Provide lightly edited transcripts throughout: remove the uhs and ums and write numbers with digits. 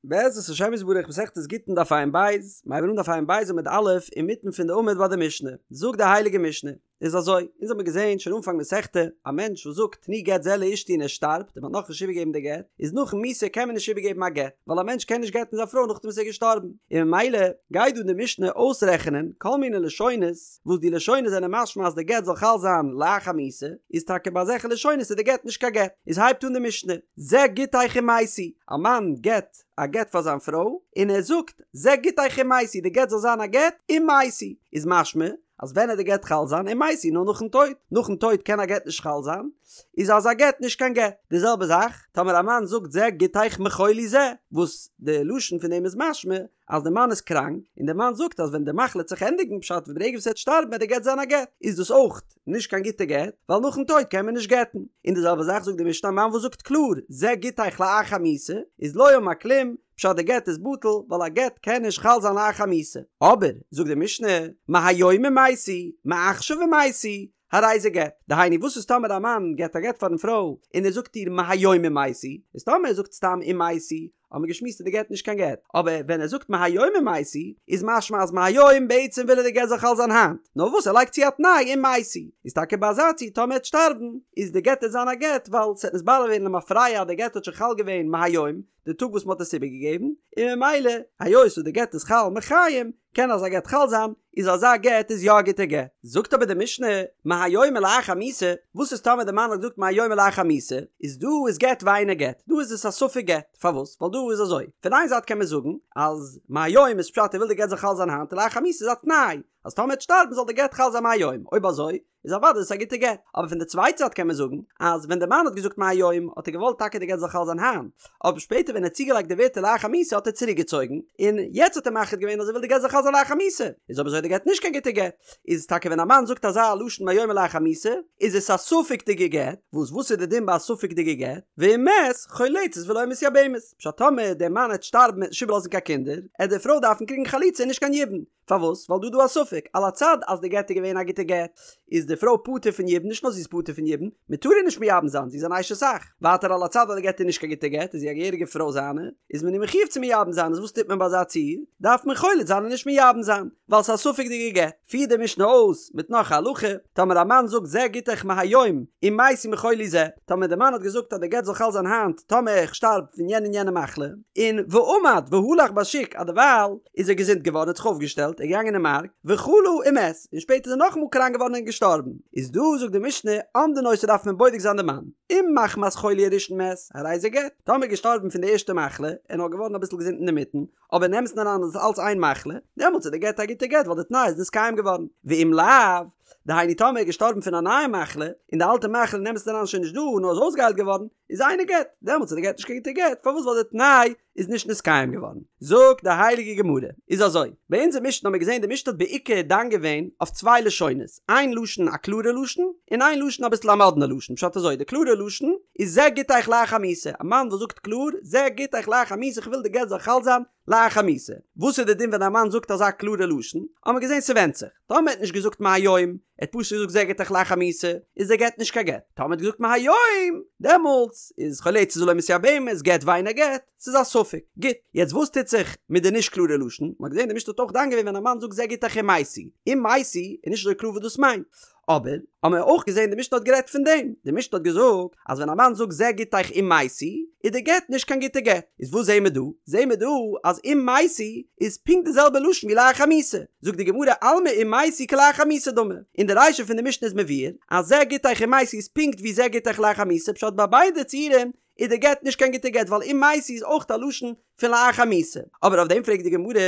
בעזרת השם יתברך מסכת גיטין דף ע"ב, מיר הייבן אן דף ע"ב עמוד א', אינמיטן פון די עמוד ביי די משנה, זאגט די הייליגע משנה, איז אזוי, אונז האמיר געזען שוין אנפאנג מסכתא, א מענטש וואס זאגט תנו גט זה לאשתי און ער שטארבט און מ'האט נאכנישט איבערגעגעבן די גט, איז נאכן מיתה קען מען נישט איבערגעבן א גט, ווייל א מענטש קען נישט גט'ן זיין פרוי נאכדעם וואס ער איז געשטארבן, און ממילא גייט דא די משנה אויסרעכענען כל מיני לשונות, וואס די לשונות זענען משמע אז די גט זאל חל זיין לאחר מיתה, איז טאקע ביי אזעלכע לשונות איז די גט נישט קיין גט. איז הייבט אן די משנה, זה גיטיך אם מתי, א מאן געט א גט פאר זיין פרוי, און ער זאגט, זה גיטיך אם מתי, די גט זאל זיין א גט אם מתי, איז משמע אז ווען עט די גט חל זיין אם מתי נאר נאכן טויט, נאכן טויט קען א גט נישט חל זיין, איז אזא גט נישט קיין גט. די זעלבע זאך טאמער א מאן זאגט זה גיטיך מחולי זה, וואס די לשון פון דעם איז משמע אז די מאן איז קראנק, און די מאן זאגט אז ווען די מחלה וועט זיך ענדיגן פשט ברגע וואס ער וועט שטארבן וועט די גט זיין א גט, איז דאס אויך נישט קיין גוטע גט, ווייל נאכן טויט קען מען נישט גט'ן. און די זעלבע זאך זאגט די משנה א מאן וואס זאגט קלאר זה גיטיך לאחר מיתה, איז לא אמר כלום, פשט די גט איז בטל, ווייל א גט קען נישט חל זיין לאחר מיתה. אבער, זאגט די משנה, מהיום אם מתי, מעכשיו אם מתי, הרי זה גט. דהיינו וואס איז טאמער א מאן געט א גט פארן פרוי און ער זאגט איר מהיום אם מתי, איז טאמער ער זאגט סתם אם מתי, האט מען געשמועסט איז די גט נישט קיין גט, אבער ווען ער זאגט מהיום אם מתי, איז משמע אז מהיום בעצם וויל ער די גט זאל חל זיין היינט, נאר וואס ער לייגט צו א תנאי אם מתי, איז טאקע ביי אזא ציור טאמער ער וועט שטארבן, איז די גט עט זיין א גט ווייל ס'עט נתברר ווערן למפרע אז די גט האט שוין חל געווען מהיום, די טאג וואס מ'האט עס איבערגעגעבן, און ממילא היות וואס די גט איז חל מחיים, קען אזא גט חל זיין, איז אזא גט איז יא א גוטע גט. זאגט אבער די משנה, מהיום ולאחר מיתה, וואס איז טאמער די מאן האט געזאגט מהיום ולאחר מיתה, איז דא איז גט ואינו גט, דא איז עס א ספק גט, פארוואס? ווייל דא איז אזוי, פון איין זייט קען מען זאגן אז מהיום איז פשט ער וויל די גט זאל חל זיין היינט און לאחר מיתה איז א תנאי אז טאמער ער וועט שטארבן זאל די גט חל זיין מהיום, אויב אזוי איז אוודאי עס א גוטע גט. אבער פון די צווייטע זייט קען מען זאגן אז ווען די מאן האט געזאגט מהיום האט ער געוואלט טאקע די גט זאל חל זיין היינט, אבער שפעטער ווען ער האט צוגעלייגט די ווערטער לאחר מיתה האט ער צוריק געצויגן, און יעצט האט ער מחליט געווען אז ער וויל די גט זאל חל זיין לאחר מיתה, איז אויב אזוי די גט נישט קיין גוטע גט. איז טאקע ווען א מאן זאגט אזא לשון מהיום ולאחר מיתה איז עס א ספק'דיגע גט, וואס וואס איז די דין ביי א ספק'דיגע גט? ואם מת, חולצת ולא מתייבמת, פשט טאמער דער מאן העט שטארבן עט נישט איבערלאזן קיין קינדער, עט די פרוי דארפן קריגן חליצה און נישט קיין יבום. פארוואס? ווייל דא איז דא א ספק, על הצד אז די גט איז געווען א גוטע גט, איז די פרוי פטור פון יבום, נישט נאר זי איז פטור פון יבום, מען טאר איר נישט מייבם זיין, זי איז אן אשת אח. ווייטער על הצד אז די גט איז נישט קיין גוטע גט, איז זי א געהעריגע פרוי זיינע, איז מען איר מחויב צו מייבם זיין, איז וואס טוט מען ביי אזא ציור? דארף מען חולץ זיין און נישט מייבם זיין, ווייל ס'איז א ספק'דיגע גט. פירט די משנה אויס מיט נאך א הלכה, טאמער א מאן זאגט זה גיטך מהיום, אם מתי מחולי זה, טאמער די מאן האט געזאגט אז די גט זאל חל זיין היינט טאמער איך שטארב פון יענע און יענע מחלה, און ועמד והלך בשוק אז דערווייל איז ער געזונט געווארן האט זיך אויפגעשטעלט ער איז געגאנגען אין מארק וחלה ומת און שפעטער איז ער נאכאמאל קראנק געווארן און געשטארבן איז דא זאגט די משנה אומדין אותו דארף מען בודק זיין די מאן אם מחמת חולי הראשון מת הרי זה גט טאמער איז געשטארבן פון די ערשטע מחלה און נאר געווארן אביסל געזונט אינדערמיטן אבער אין אמת'ן אריין איז עס אלץ איין מחלה דעמאלטס איז די גט א גוטע גט ווייל די תנאי איז נתקיים געווארן ואם לאו דהיינו טאמער איז געשטארבן פון א נייע מחלה און די אלטע מחלה אין אמת'ן אריין שוין נישט דא נאר איז אויסגעהיילט געווארן איז אינו גט דעמאלטס איז די גט נישט קיין גוטע גט פארוואס ווייל די תנאי איז נישט נתקיים געווארן. זאגט די הייליגע גמרא, איז אזוי, ביי אונזער משנה האבן מיר געזען די משנה האט בעיקר דן געווען אויף צוויי לשונות, איין לשון א קלארע לשון, און איין לשון אביסל א מאדנע לשון, פשט אזוי, די קלארע לשון איז זה גיטיך לאחר מיתה, א מאן וואס זאגט קלאר, זה גיטיך לאחר מיתה איך וויל די גט זאל חל זיין לאחר מיתה. וואס איז די דין ווען א מאן זאגט אזא קלארע לשון? האבן מיר געזען ס'ווענדט זיך. טאמער ער האט נישט געזאגט מהיום, ער האט פשוט געזאגט זה גיטיך לאחר מיתה, איז דער גט נישט קיין גט. טאמער ער האט געזאגט מהיום, דעמאלטס איז חולצת ולא מתייבמת, גט ואינו גט, ס'איז א ספק. גוט, יעצט וואס טוט זיך מיט די נישט קלארע לשון? מ'האט געזען די משנה האט אויך דן געווען ווען א מאן זאגט זה גיטיך אם מתי. אם מתי איז נישט אזוי קלאר וואס דאס מיינט. אבער, האבן מיר אויך געזען די משנה האט גערעדט פון דעם, די משנה האט געזאגט אז ווען א מאן זאגט זה גיטיך אם מתי, איז די גט נישט קיין גוטע גט, איז וואס זעהן מיר דא? זעהן מיר דא אז אם מתי איז פונקט די זעלבע לשון ווי לאחר מיתה, זאגט די גמרא אלמא אם מתי כלאחר מיתה דמי, אין די רישא פון די משנה איז מבואר אז זה גיטיך אם מתי איז פונקט ווי זה גיטיך לאחר מיתה, פשט ביי ביידע ציורים איז די גט נישט קיין גוטע גט ווייל אם מתי איז אויך א לשון פון לאחר מיתה, אבער אויף דעם פרעגט די גמרא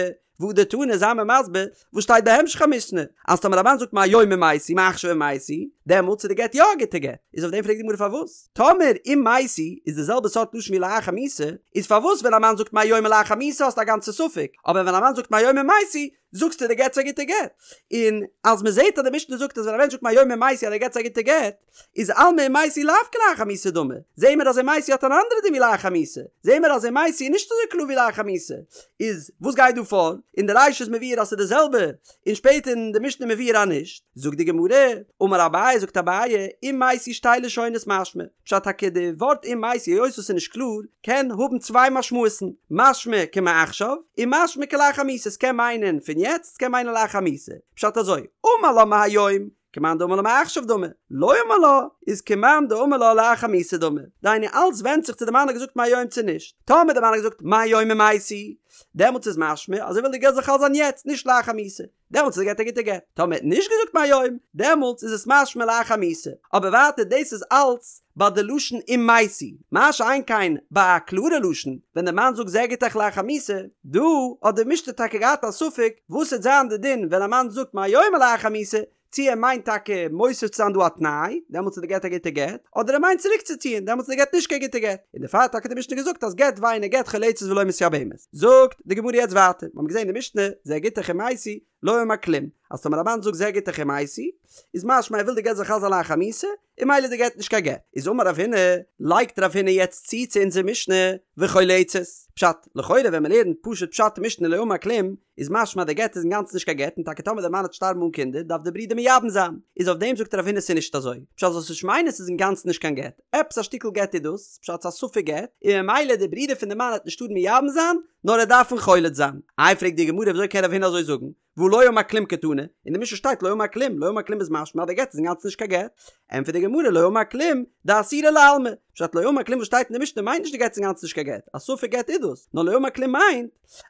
והדר תני זיי מיר מסביר וואס שטייט בהמשך המשנה, אז טאמער א מאן זאגט מהיום אם מתי מעכשיו אם מתי, דעמאלטס איז די גט יא א גוטע גט, איז אויף דעם פרעגט די גמרא פארוואס טאמער אם מתי איז די זעלבע סארט לשון ווי לאחר מיתה, איז פארוואס ווען א מאן זאגט מהיום ולאחר מיתה האסטו א גאנצע ספק, אבער ווען א מאן זאגט מהיום אם מתי זאגסטו די גט איז א גוטע גט, און אז מען זעט אז די משנה זאגט אז ווען א מענטש זאגט מהיום אם מתי אז די גט איז א גוטע גט, איז אלמא אם מתי לאו כלאחר מיתה דמי, זעהן מיר אז אם מתי האט אן אנדערע דין ווי לאחר מיתה, זעהן מיר אז אם מתי איז נישט אזוי קלאר ווי לאחר מיתה, איז וואס גייט דא פאר? אין די רישא איז מבואר אז ס'איז די זעלבע, און שפעטער אין די משנה מבואר אז נישט, זאגט די גמרא, אמר אביי. אביי זאגט אביי, אם מתי שתי לשונות משמע, פשט טאקע די ווארט אם מתי היות עס איז נישט קלאר, קען האבן צוויי משמעות'ן, משמע כמעכשיו, און משמע כלאחר מיתה, ס'קען מיינען פון יעצט, ס'קען מיינען לאחר מיתה, פשט אזוי, אמר לה מהיום, כמאן דאמר לה מעכשיו דמי, לא אמר לה, איז כמאן דאמר לה לאחר מיתה דמי, דהיינו אלץ ווענדט זיך צו די מאן האט געזאגט מהיום צו נישט, טאמער די מאן האט געזאגט מהיום אם מתי, דעמאלטס איז משמע אז ער וויל די גט זאל חל זיין יעצט, נישט לאחר מיתה. דעמאלטס איז די גט א גוטע גט, טאמער ער האט נישט געזאגט מהיום, דעמאלטס איז עס משמע לאחר מיתה, אבער ווייטער דאס איז אלץ ביי די לשון אם מתי, מה שאין כן ביי א קלארע לשון, ווען די מאן זאגט זה גיטך לאחר מיתה, דא האט די משנה טאקע געהאט א ספק וואס וועט זיין די דין ווען א מאן זאגט מהיום ולאחר מיתה, צי ער מיינט טאקע מוסיף צו זיין דא א תנאי, דעמאלטס איז די גט א גוטע גט, אדער ער מיינט צוריקצוציען, דעמאלטס איז די גט נישט קיין גוטע גט, און דערפאר האט טאקע די משנה געזאגט אז גט ואינו גט חולצת ולא מתייבמת. זאגט די גמרא יעצט ווייטער, מיר האבן געזען אין די משנה, זה גיטך אם מתי, לא אמר כלום, אז טאמער א מאן זאגט זה גיטך אם מתי, איז משמע ער וויל די גט זאל חל זיין לאחר מיתה, און ממילא איז די גט נישט קיין גט. איז אמר רב הונא, לייגט רב הונא יעצט צו צו אונזער משנה, וחולצת. פשט, לכאורה ווען מען לערנט פשוט פשט אין משנה לא אמר כלום, איז משמע אז די גט איז אינגאנצן נישט קיין גט און טאקע טאמער די מאן וועט שטארבן אן קינדער דארף די ברודער מייבם זיין, איז אויף דעם זאגט רב הונא ס'איז נישט אזוי, פשט זאלסט נישט מיינען ס'איז אינגאנצן נישט קיין גט, עפעס א שטיקל גט איז דאס, פשט ס'איז א ספק גט, און ממילא די ברודער פון די מאן וועט נישט טארן מייבם זיין, נאר ער דארף אים חולץ זיין. איי פרעגט די גמרא וויאזוי קען רב הונא אזוי זאגן, והא לא אמר כלום קתני, אין די משנה שטייט לא אמר כלום, לא אמר כלום איז משמע אז די גט איז אינגאנצן נישט קיין גט, ענטפערט די גמרא לא אמר כלום, דאסירא לעלמא, פשט לא אמר כלום וואס שטייט אין די משנה מיינט נישט די גט איז אינגאנצן נישט קיין גט, א ספק גט איז דאס, נאר לא אמר כלום מיינט,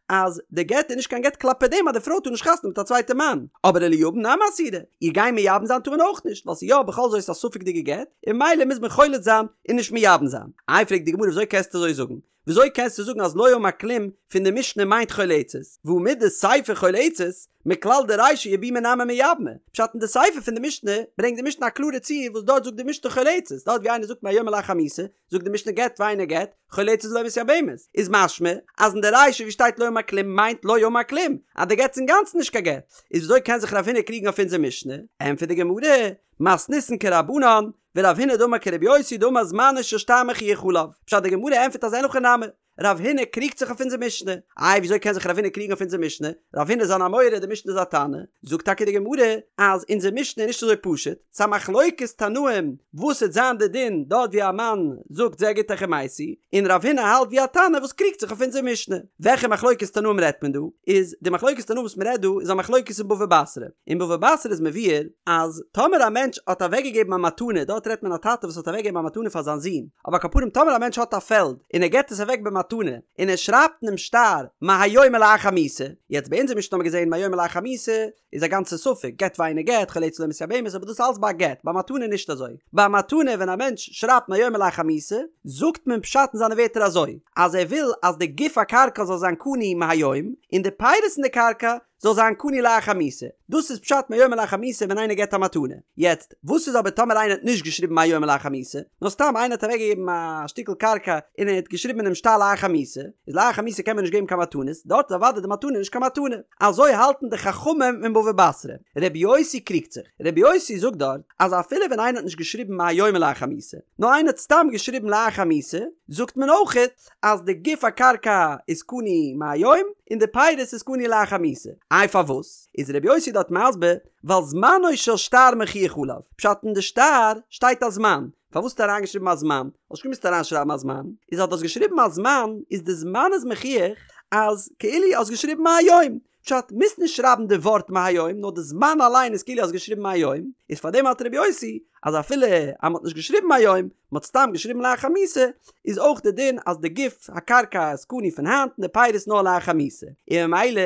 אז די גט איז נישט קיין גט כלפי דעם אז די פרוי טאר נישט חתונה מיט א צווייטע מאן, אבער וליבם נמי אסירא, איר גיין מייבם זיין טאר מען אויך נישט, ווייל ס'איז יא בכל זאת א ספק'דיגע גט, און ממילא מוז מען חולץ זיין און נישט מייבם זיין. איי פרעגט די גמרא וויאזוי קענסטו אזוי זאגן? וויאזוי קענסטו זאגן אז לא אמר כלום פון די משנה מיינט חולצת, והא מדסיפא חולצת, מכלל דרישא יבומי נמי מייבמה, פשט אין די סיפא פון די משנה ברענגט די משנה א קלארע ציור וואס דארט זאגט די משנה חולצת, דארט ווי איינער זאגט מהיום ולאחר מיתה, זאגט די משנה גט ואינו גט, חולצת ולא מתייבמת, איז משמע אז אין די רישא ווי שטייט לא אמר כלום מיינט לא אמר כלום אז די גט איז אינגאנצן נישט קיין גט, איז וויאזוי קען זיך רב הונא קריגן אויף אונזער משנה? ענטפערט די גמרא, מתניתין כרבנן, ורב הונא דאמר כרבי יוסי דאמר זמנו של שטר מוכיח עליו, פשט די גמרא ענטפערט אז אין הכי נמי, רב הונא קריגט זיך אויף אונזער משנה. איי וויאזוי קען זיך רב הונא קריגן אויף אונזער משנה? רב הונא איז אן אמורא, די משנה איז א תנא. זאגט טאקע די גמרא אז אונזער משנה איז נישט אזוי פשוט, ס'איז א מחלוקת תנאים וואס וועט זיין די דין דארט ווי א מאן זאגט זה גיטך אם מתי, און רב הונא האלט ווי א תנא וואס קריגט זיך אויף אונזער משנה. וועלכע מחלוקת תנאים רעדט מען דא? איז די מחלוקת תנאים וואס מ'רעדט דא איז א מחלוקת אין בבא בתרא. אין בבא בתרא איז מבואר אז טאמער א מענטש האט אוועקגעגעבן א מתנה, דארט רעדט מען א טאטע וואס האט אוועקגעגעבן א מתנה פאר זיין זון, אבער על כל פנים טאמער א מענטש האט א פעלד און ער געבט עס אוועק במתנה און ער שרייבט אינעם שטר מהיום ולאחר מיתה, יעצט ביי אונזער משנה האבן מיר געזען מהיום ולאחר מיתה איז א גאנצע ספק גט ואינו גט חולצת ולא מתייבמת אבער דאס אלץ ביי א גט ביי מתנה נישט אזוי ביי א מתנה ווען א מענטש שרייבט מהיום ולאחר מיתה זאגט מען פשט אין זיינע ווערטער אזוי אז ער וויל אז די גוף הקרקע זאל זיין קנוי מהיום און די פירות אין די קרקע זאל זיין קנוי לאחר מיתה. דאס איז פשט מהיום ולאחר מיתה ווען איינער געבט א מתנה. יעצט, וואס איז אבער טאמער איינער האט נישט געשריבן מהיום ולאחר מיתה, נאר סתם איינער האט אוועקגעגעבן א שטיקל קרקע און ער האט געשריבן אינעם שטר לאחר מיתה, איז לאחר מיתה קען מען נישט געבן קיין מתנות, דארט איז אוודאי די מתנה נישט קיין מתנה. אזוי האלטן די חכמים אין בבא בתרא. רבי יוסי קריגט זיך. רבי יוסי זאגט דארט אז אפילו ווען איינער האט נישט געשריבן מהיום ולאחר מיתה, נאר איינער האט סתם געשריבן לאחר מיתה, זאגט מען אויכעט אז די גוף הקרקע איז קנוי מהיום און די פירות איז קנוי לאחר מיתה. איי פארוואס? איז רבי יוסי דארט מסביר, ווייל זמנו של שטר מוכיח עליו, פשט אין די שטר שטייט א זמן, פארוואס האסטו אריינגעשריבן א זמן? האסט נישט געמוזט אריינשרייבן א זמן, איז אז דו האסט געשריבן א זמן איז די זמן איז מוכיח אז כאילו האסט געשריבן מהיום, פשט, מוזט נישט שרייבן די ווארט מהיום, נאר די זמן אליין איז כאילו האסט געשריבן מהיום, איז פאר דעם האלט רבי יוסי אז אפילו אז מ'האט נישט געשריבן מהיום, מ'האט סתם געשריבן לאחר מיתה, איז אויך די דין אז די גוף הקרקע איז קנוי פון היינט און די פירות נאר לאחר מיתה. און ממילא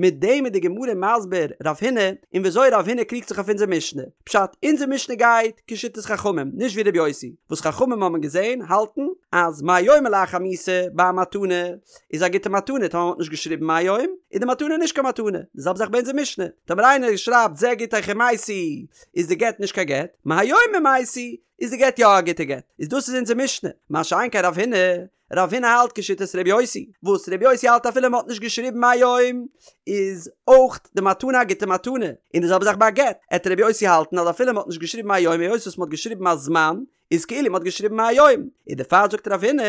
מיט דעם איז די גמרא מסביר רב הונא און וויאזוי רב הונא קריגט זיך אויף אונזער משנה. פשט, אונזער משנה גייט כשיטת חכמים, נישט ווי רבי יוסי, וואס חכמים האבן געזען, האלטן, אז מהיום ולאחר מיתה ביי א מתנה, איז א גוטע מתנה, טאמער מ'האט נישט געשריבן מהיום, איז די מתנה נישט קיין מתנה. די זעלבע זאך ביי אונזער משנה, טאמער איינער שרייבט זה גיטך אם מתי, איז די גט נישט קיין גט, מהיום אם מתי, איז די גט יא א גוטע גט. איז דאס איז אונזער משנה. מה שאין כן רב הונא, רב הונא האלט כשיטת ר' יוסי, וואס ר' יוסי האלט אפילו מ'האט נישט געשריבן מהיום, איז אויך די מתנה א גוטע מתנה. און די זעלבע זאך ביי א גט, עט ר' יוסי האלטן אז אפילו מ'האט נישט געשריבן מהיום היות וואס מ'האט געשריבן א זמן, איז כאילו מ'האט געשריבן מהיום, און דערפאר זאגט רב הונא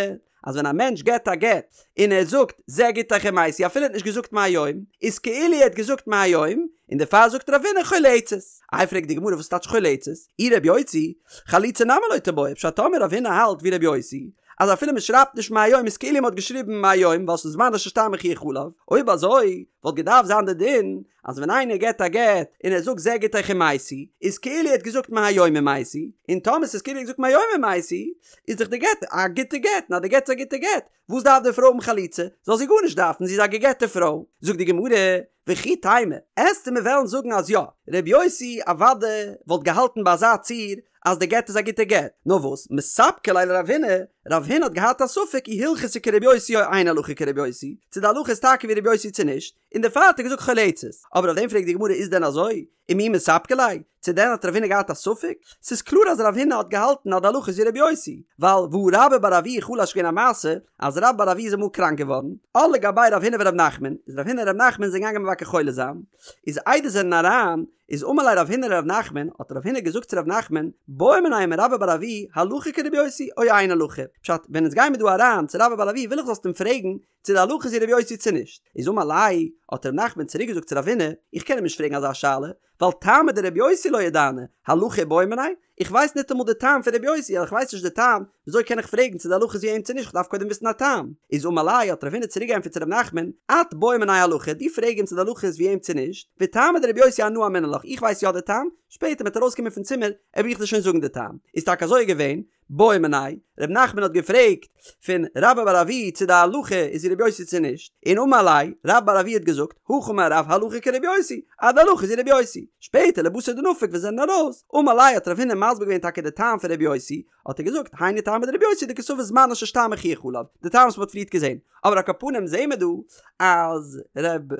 אז ווען א מענטש געבט א גט און ער זאגט זה גיטך אם מתי אפילו ער האט נישט געזאגט מהיום איז כאילו ער האט געזאגט מהיום, און דערפאר זאגט רב הונא חולצת. איי פרעגט די גמרא וואס טייטש חולצת? אי רבי יוסי, חליצה נמי לא תיבעי, פשט טאמער רב הונא האלט ווי רבי יוסי, אז אפילו מען שרייבט נישט מהיום איז כאילו מען האט געשריבן מהיום ווייל ס'איז זמנו של שטר מוכיח עליו, אויב אזוי וואלט געדארפט זיין די דין אז ווען איינער געט א גט און ער זאגט זה גיטך אם מתי איז כאילו ער האט געזאגט מהיום אם מתי, און טאמער ס'איז כאילו ער האט געזאגט מהיום אם מתי איז דאך די גט א גוטע גט, און אז די גט איז א גוטע גט וואס דארף די פרוי האבן חליצה? זאל זי גארנישט דארפן, זי איז א גע'גט'ע פרוי. זאגט די גמרא, וכי תימא, עסטו מיר וועלן זאגן אז יא, ר' יוסי אוודאי וואלט געהאלטן ביי אזא ציור אז די גט איז א גוטע גט, נאר וואס, מספקא ליה לרב הונא, רב הונא האט געהאט א ספק אי הלכתא כר' יוסי או אין הלכה כר' יוסי, צו די הלכה איז טאקע ווי ר' יוסי צו נישט, און דערפאר האט ער געזאגט חולצת. אבער אויף דעם פרעגט די גמרא איז דען אזוי? ומי מספקא ליה? צו דען האט רב הונא געהאט א ספק? ס'איז קלאר אז רב הונא האט געהאלטן אז די הלכה איז ווי רבי יוסי, ווייל והא רבה בר אבוה חלש געווען א מעשה אז רבה בר אבוה איז אמאל קראנק געווארן, עול לגביה רב הונא ורב נחמן, איז רב הונא און רב נחמן זענען געגאנגען מבקר חולה זיין, איז איידער זענען אריין, איז אמר ליה רב הונא לרב נחמן, האט רב הונא געזאגט צו רב נחמן, בעי מיניה מרבה בר אבוה הלכה כרבי יוסי או אין הלכה, פשט, ווען אונז גיימיר דא אריין צו רבה בר אבוה וויל איך זאלסט אים פרעגן צו די הלכה איז ווי רבי יוסי צו נישט, איז אמר ליה, האט ר' נחמן צוריק געזאגט צו רב הונא, איך קען אים נישט פרעגן אזא שאלה, ווייל טעמא דרבי יוסי לא ידענא, הלכה איבעי מיניה, איך ווייס ניטאמאל די טעם פון רבי יוסי, אז איך ווייס נישט די טעם, וויאזוי קען איך פרעגן צו די הלכה איז ווי אים צו נישט, איך דארף קודם וויסן א טעם. איז אמר ליה, האט רב הונא צוריק געענטפערט צו ר' נחמן, את בעי מיניה הלכה, דו פרעג אים צו די הלכה איז ווי אים צו נישט, וטעמא דרבי יוסי אנא אמינא לך, איך ווייס יא די טעם, שפעטער מ'וועט ארויסקומען פון צימער, וועל איך דיר שוין זאגן די טעם. איז טאקע אזוי געווען, בעא מיניה, ר' נחמן האט געפרעגט פון רבה בר אבוה צו די הלכה איז ווי ר' יוסי צו נישט, און אמר ליה, רבה בר אבוה האט געזאגט, הכי אמר רב הלכה כר' יוסי, אז די הלכה איז ווי ר' יוסי. שפעטער לבתר דנפק ווען זיי זענען ארויס, אמר ליה האט רב הונא מסביר געווען טאקע די טעם פון ר' יוסי, האט ער געזאגט, היינו טעמא דר' יוסי דקסבר זמנו של שטר מוכיח עליו, די טעם וואס מען האט פריערט געזען. אבער על כל פנים זעהן מיר דא אז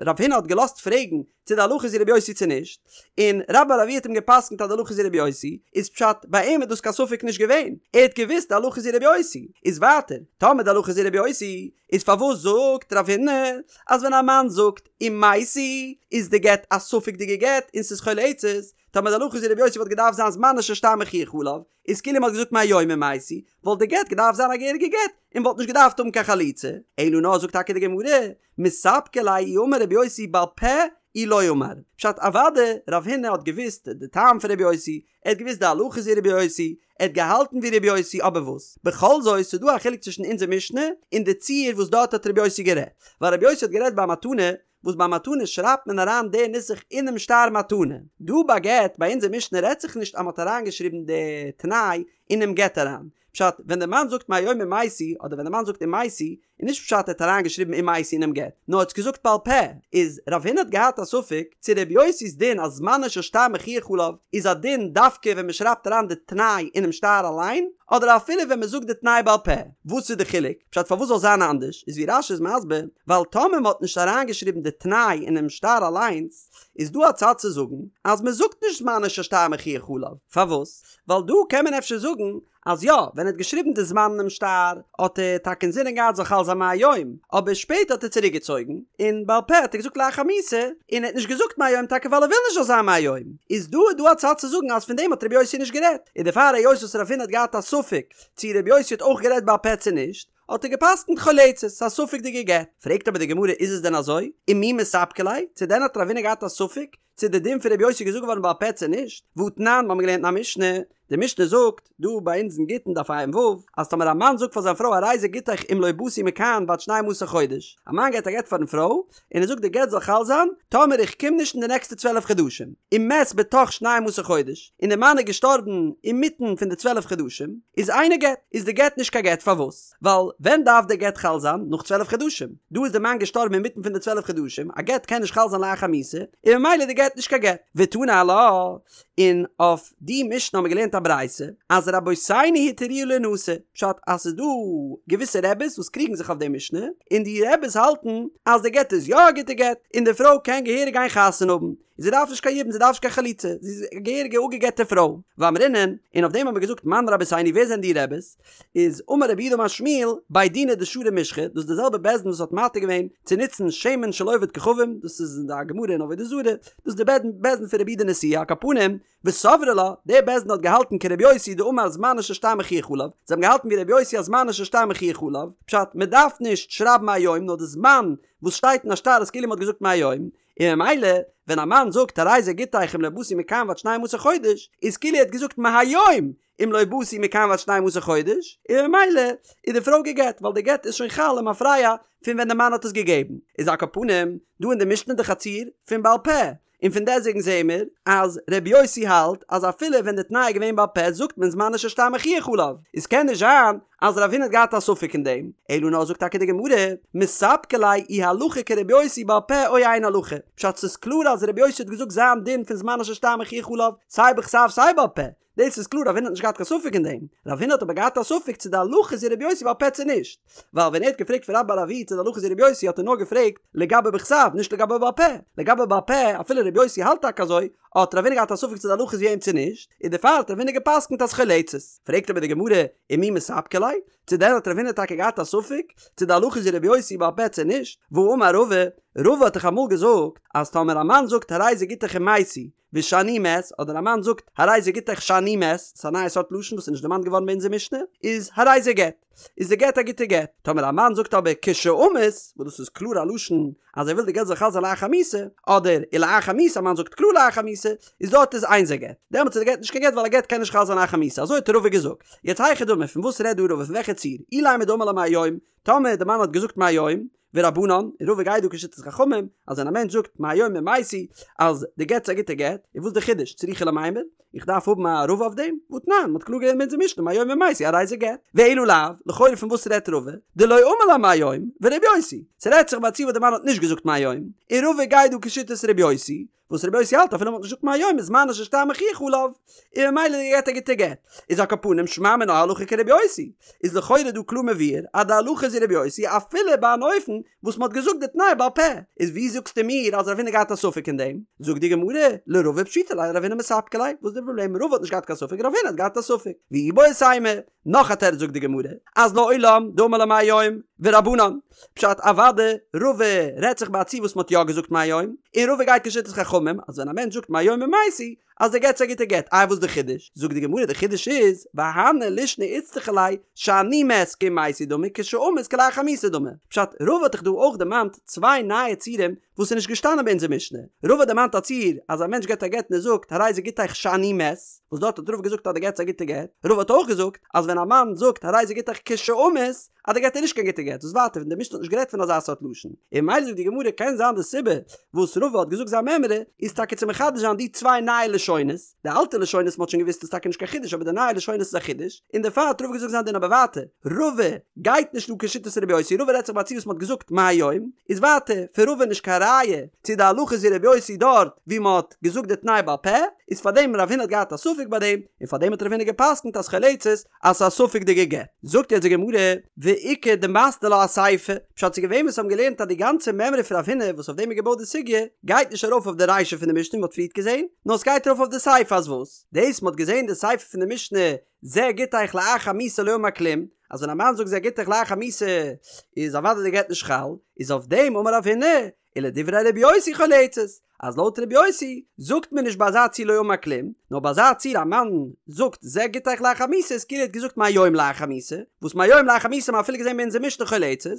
רב הונא האט געלאזט פרעגן צו די הלכה איז ווי רבי יוסי צו נישט, און רבה בר אבוה האט אים געפסקנט אז די הלכה איז ווי רבי יוסי, איז פשט ביי אים איז דאס קיין ספק נישט געווען, ער האט געוואוסט די הלכה איז ווי רבי יוסי, איז ווייטער, טאמער די הלכה איז ווי רבי יוסי, איז פארוואס זאגט רב הונא אז ווען א מאן זאגט אם מתי איז די גט א ספק'דיגע גט און ס'איז חולצת, טאמער די הלכה איז ווי רבי יוסי וואלט געדארפט זיין זמנו של שטר מוכיח עליו, איז כאילו מ'האט געזאגט מהיום אם מתי, וואלט די גט געדארפט זיין א געהעריגע גט, און וואלט נישט געדארפט האבן קיין חליצה, אלא נאר זאגט טאקע די גמרא, מספקא ליה אי אמר רבי יוסי בעל פה אי לא אמר, פשט אוודאי רב הונא האט געוואוסט די טעם פון רבי יוסי, ער האט געוואוסט די הלכה איז ווי רבי יוסי, ער האט געהאלטן ווי רבי יוסי אבער וואס? בכל זאת ס'איז דא א חילוק צווישן אונזער משנה און די ציור וואס דארט האט רבי יוסי גערעדט, ווייל רבי יוסי האט גערעדט ביי מתנה, וואס ביי מתנה שרייבט מען אריין די נוסח אינעם שטר מתנה, דא ביי גט ביי אונזער משנה רעדט זיך נישט אז מ'האט אריינגעשריבן די תנאי אינעם גט אריין, פשט ווען די מאן זאגט מהיום אם מתי אדער ווען די מאן זאגט אם מתי איז נישט פשט ער האט אריינגעשריבן אם מתי אינעם גט נאר ער האט עס געזאגט בעל פה, איז רב הונא האט געהאט א ספק צו ר' יוסי'ס דין אז זמנו של שטר מוכיח עליו איז א דין דווקא ווען מ'שרייבט אריין די תנאי אינעם שטר אליין אדער אפילו ווען מ'זאגט די תנאי בעל פה, וואס איז די חילוק? פשט פארוואס זאל זיין אנדערש איז ווי רש"י איז מסביר ווייל טאמער מ'האט נישט אריינגעשריבן די תנאי אינעם שטר אליינס איז דא א צד צו זאגן אז מ'זאגט נישט זמנו של שטר מוכיח עליו, פארוואס? ווייל דא קען מען אפשר זאגן אז יא, ווען ער האט געשריבן די זמן אינעם שטר האט ער טאקע אינזינען געהאט זאל חל זיין מהיום, אבער שפעטער האט ער צוריק געצויגן, און בעל פה האט ער געזאגט לאחר מיתה, און ער האט נישט געזאגט מהיום טאקע ווייל ער וויל נישט זאל זיין מהיום, איז דא איז דא א צד צו זאגן אז פון דעם האט רבי יוסי נישט גערעדט, און דערפאר היות וואס רב הונא האט געהאט א ספק צו רבי יוסי האט אויך גערעדט בעל פה צו נישט, האט ער געפסקנט חולצת, ס'איז א ספק'דיגע גט. פרעגט אבער די גמרא איז עס דען אזוי? ומי מספקא ליה? צו דען האט רב הונא געהאט א ספק צו די דין פון רבי יוסי איז געזאגט געווארן בעל פה צו נישט? והתנן, מ'האמיר געלערנט אין א משנה, די משנה זאגט, דא ביי אונז אין גיטין דף ע"ו, אז טאמער א מאן זאגט פאר זיין פרוי הרי זה גיטך אם לא באתי מכאן ועד שנים עשר חודש, א מאן געבט א גט פארן פרוי, און ער זאגט די גט זאל חל זיין טאמער איך קום נישט אין די נעקסטע 12 חדשים, ומת בתוך שנים עשר חודש, און די מאן איז געשטארבן אינמיטן פון די 12 חדשים, איז אינו גט, איז די גט נישט קיין גט, פארוואס? ווייל ווען דארף די גט חל זיין? נאך 12 חדשים, דא איז די מאן געשטארבן אינמיטן פון די 12 חדשים, א גט קען נישט חל זיין לאחר מיתה, און ממילא איז די גט נישט קיין גט. ותני עלה, און אויף די משנה האבן מיר געלערנט א ברייתא אז רבותינו התירוה לינשא, פשט אז ס'איז דא געוויסע רעביס וואס קריגן זיך אויף די משנה, און די רעביס האלטן אז די גט איז יא א גוטע גט, און די פרוי קען געהעריג גיין חתונה האבן, און זי דארף נישט קיין יבום זי דארף נישט קיין חליצה, זי איז א געהעריגע אפגע'גט'ע פרוי. ואמרינן, און אויף דעם האבן מיר געזאגט מאן רבותינו ווער זענען די רעביס? איז אמר רב יהודה אמר שמואל, בי דינא דשרו משחא, דאס איז די זעלבע בית דין וואס האט מתיר געווען צו נוצן שמן של עובד כוכבים, דאס איז אין די גמרא אין עבודה זרה, דאס איז די בית דין פון רבי יהודה נשיאה, על כל פנים, וסברי לה, דער בית דין האט געהאלטן כרבי יוסי דאמר זמנו של שטר מוכיח עליו, זיי האבן געהאלטן ווי רבי יוסי אז זמנו של שטר מוכיח עליו, פשט, מען דארף נישט שרייבן מהיום נאר די זמן וואס שטייט אין א שטר איז כאילו מען האט געזאגט מהיום, און ממילא ווען א מאן זאגט הרי זה גיטך אם לא באתי מכאן ועד שנים עשר חודש, איז כאילו ער האט געזאגט מהיום אם לא באתי מכאן ועד שנים עשר חודש, און ממילא איז די פרוי גע'גט ווייל די גט איז שוין חל למפרע פון ווען די מאן האט עס געגעבן, איז על כל פנים דא אין די משנה דאך א ציור פון בעל פה, און פון דעסוועגן זעהן מיר אז ר' יוסי האלט אז אפילו ווען די תנאי איז געווען בעל פה זאגט מען זמנו של שטר מוכיח עליו, איז קען נישט זיין אז רב הונא האט געהאט א ספק אין דעם, אלא נאר זאגט טאקע די גמרא, מספקא ליה אי הלכה כר' יוסי בעל פה או אין הלכה, פשט ס'איז קלאר אז ר' יוסי האט געזאגט זיין דין פון זמנו של שטר מוכיח עליו סיי בכתב סיי בעל פה, דאס איז קלאר רב הונא האט נישט געהאט קיין ספק אין דעם, רב הונא האט אבער געהאט א ספק צו די הלכה איז ווי רבי יוסי בעל פה צו נישט, ווייל ווען ער האט געפרעגט פון רבה בר אבוה צו די הלכה איז ווי רבי יוסי האט ער נאר געפרעגט לגבי בכתב נישט לגבי בעל פה, לגבי בעל פה אפילו רבי יוסי האלט טאקע אזוי, האט רב הונא געהאט א ספק צו די הלכה איז ווי אים צו נישט, און דערפאר האט רב הונא געפסקנט אז חולצת. פרעגט אבער די גמרא, ומי מספקא ליה? צו דען האט רב הונא טאקע געהאט א ספק צו די הלכה איז ווי רבי יוסי בעל פה צו נישט? והאמר רבא, רבא האט דאך אמאל געזאגט אז טאמער א מאן זאגט הרי זה גיטך אם מתי, ושאני מת, אדער א מאן זאגט הרי זה גיטך שאני מת, ס'איז א נייע סארט לשון וואס איז נישט דערמאנט געווארן ביי אונזער משנה, איז הרי זה גט, איז די גט א גוטע גט. טאמער א מאן זאגט אבער כשאמות, וואס דאס איז קלאר א לשון אז ער וויל די גט זאל חל זיין לאחר מיתה, אדער ולאחר מיתה, א מאן זאגט קלאר לאחר מיתה, איז דארט איז אין זה גט. דעמאלטס איז די גט נישט קיין גט ווייל א גט קען נישט חל זיין לאחר מיתה, אזוי האט רבא געזאגט. יעצט היכי דמי, פון וואס רעדט דא רבא, פון וועלכע ציור? אילימא דאמר לה מהיום, טאמער די מאן האט געזאגט מהיום, ורבנן, און רבא גייט דא כשיטת חכמים, אז ווען א מענטש זאגט מהיום אם מתי אז די גט איז א גוטע גט, איז וואס די חידוש? צריכא למימר? איך דארף האבן א רבא אויף דעם? והתנן, מ'האט קלאר געלערנט אין אונזער משנה מהיום אם מתי הרי זה גט. ואלא לאו, לכאורה פון וואס רעדט רבא? דלא אמר לה מהיום, ורבי יוסי. ס'רעדט זיך ביי א ציור וואס די מאן האט נישט געזאגט מהיום, און רבא גייט דא כשיטת רבי יוסי, וואס רבי יוסי האלט אפילו מ'האט נישט געזאגט מהיום איז זמנו של שטר מוכיח עליו, און ממילא איז די גט א גוטע גט. איז על כל פנים שמע מינה הלכה כרבי יוסי. איז לכאורה דא קלאר מבואר אז די הלכה איז ווי רבי יוסי אפילו ביי אן אופן וואס מ'האט געזאגט די תנאי בעל פה. איז ווי זאגסטו מיר אז רב הונא געהאט א ספק אין דעם? זאגט די גמרא, לרבא פשיטא ליה לרב הונא מספקא ליה, וואס איז די פראבלעם רבא האט נישט געהאט קיין ספק רב הונא האט געהאט א ספק. ואיבעית אימא, נאך א תירוץ זאגט די גמרא, אז לעולם דאמר לה מהיום, ורבנן. פשט אוואדע, רבא רעדט זיך ביי א ציור וואס מ'האט יא געזאגט מהיום, און רבא גייט כשיטת חכמים, אז ווען א מענטש זאגט מהיום אם מתי, אז די גט איז א גוטע גט, איי וואס די חידוש? זאגט די גמרא די חידוש איז, והני לישני איצטריכא ליה, שאני מת כאם מתי דמי כשאמות כלאחר מיתה דמי. פשט, רבא האט דאך דא אויך דערמאנט צוויי נייע ציורים וואס איז נישט געשטאנען ביי אונזער משנה. רבא האט דערמאנט א ציור אז א מענטש געבט א גט און ער זאגט הרי זה גיטך שאני מת, וואס דארט האט רבא געזאגט אז די גט איז א גוטע גט, רבא האט אויך געזאגט אז ווען א מאן זאגט הרי זה גיטך כשאמות אז די גט איז נישט קיין גוטע גט, וואס ווייטער פון די משנה האט נישט גערעדט פון אזא סארט לשון, און ממילא זאגט די גמרא קען זיין די סיבה וואס רבא האט געזאגט זיין מימרא איז טאקע צו מחדש זיין די צוויי נייע לשונות, די אלטע לשונות מ'האט שוין געוואוסט איז טאקע נישט קיין חידוש אבער די נייע לשונות איז א חידוש, און דערפאר האט רבא געזאגט זיין דין אבער ווייטער רבא גייט נישט אן כשיטת רבי יוסי רבא רעדט זיך ביי א ציור וואס מ'האט געזאגט מהיום, איז ווייטער פון רבא נישט קיין ראיה צו די הלכה איז ווי רבי יוסי דארט ווי מ'האט געזאגט די תנאי בעל פה, איז פארדעם רב הונא האט געהאט א ספק ביי דעם, און פארדעם האט רב הונא גע'פסק'נט אז חולצת אז ס'איז א ספק'דיגע גט. זאגט יעצט די גמרא, ואיכא דמתני לה אסיפא, פשט ס'איז געווען וואס האבן געלערנט אז די גאנצע מימרא פון רב הונא וואס אויף דעם איז געבויט די סוגיא, גייט נישט ארויף אויף די רישא פון די משנה ווי מ'האט פריערט געזען, נאר ס'גייט ארויף אויף די סיפא אז וואס? דאס מ'האט געזען די סיפא פון די משנה זה גיטך לאחר מיתה לא אמר כלום, אז ווען א מאן זאגט זה גיטך לאחר מיתה איז אוודאי די גט נישט חל, איז אויף דעם אמר רב הונא, ולדברי רבי יוסי חולצת, אז לויט רבי יוסי זאגט מען נישט ביי אזא ציור לא אמר כלום, נאר ביי אזא ציור א מאן זאגט זה גיטך לאחר מיתה איז כאילו ער האט געזאגט מהיום לאחר מיתה, וואס מהיום לאחר מיתה האט מען אפילו געזען ביי אונזער משנה חולצת,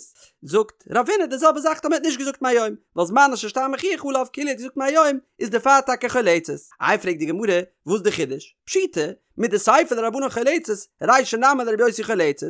זאגט רב הונא די זעלבע זאך טאמער ער האט נישט געזאגט מהיום, ווייל זמנו של שטר מוכיח עליו כאילו ער האט געזאגט מהיום איז דערפאר טאקע חולצת. איי פרעגט די גמרא וואס די חידוש? פשיטא, מדסיפא לרבנן חולצת, רישא נמי לרבי יוסי חולצת.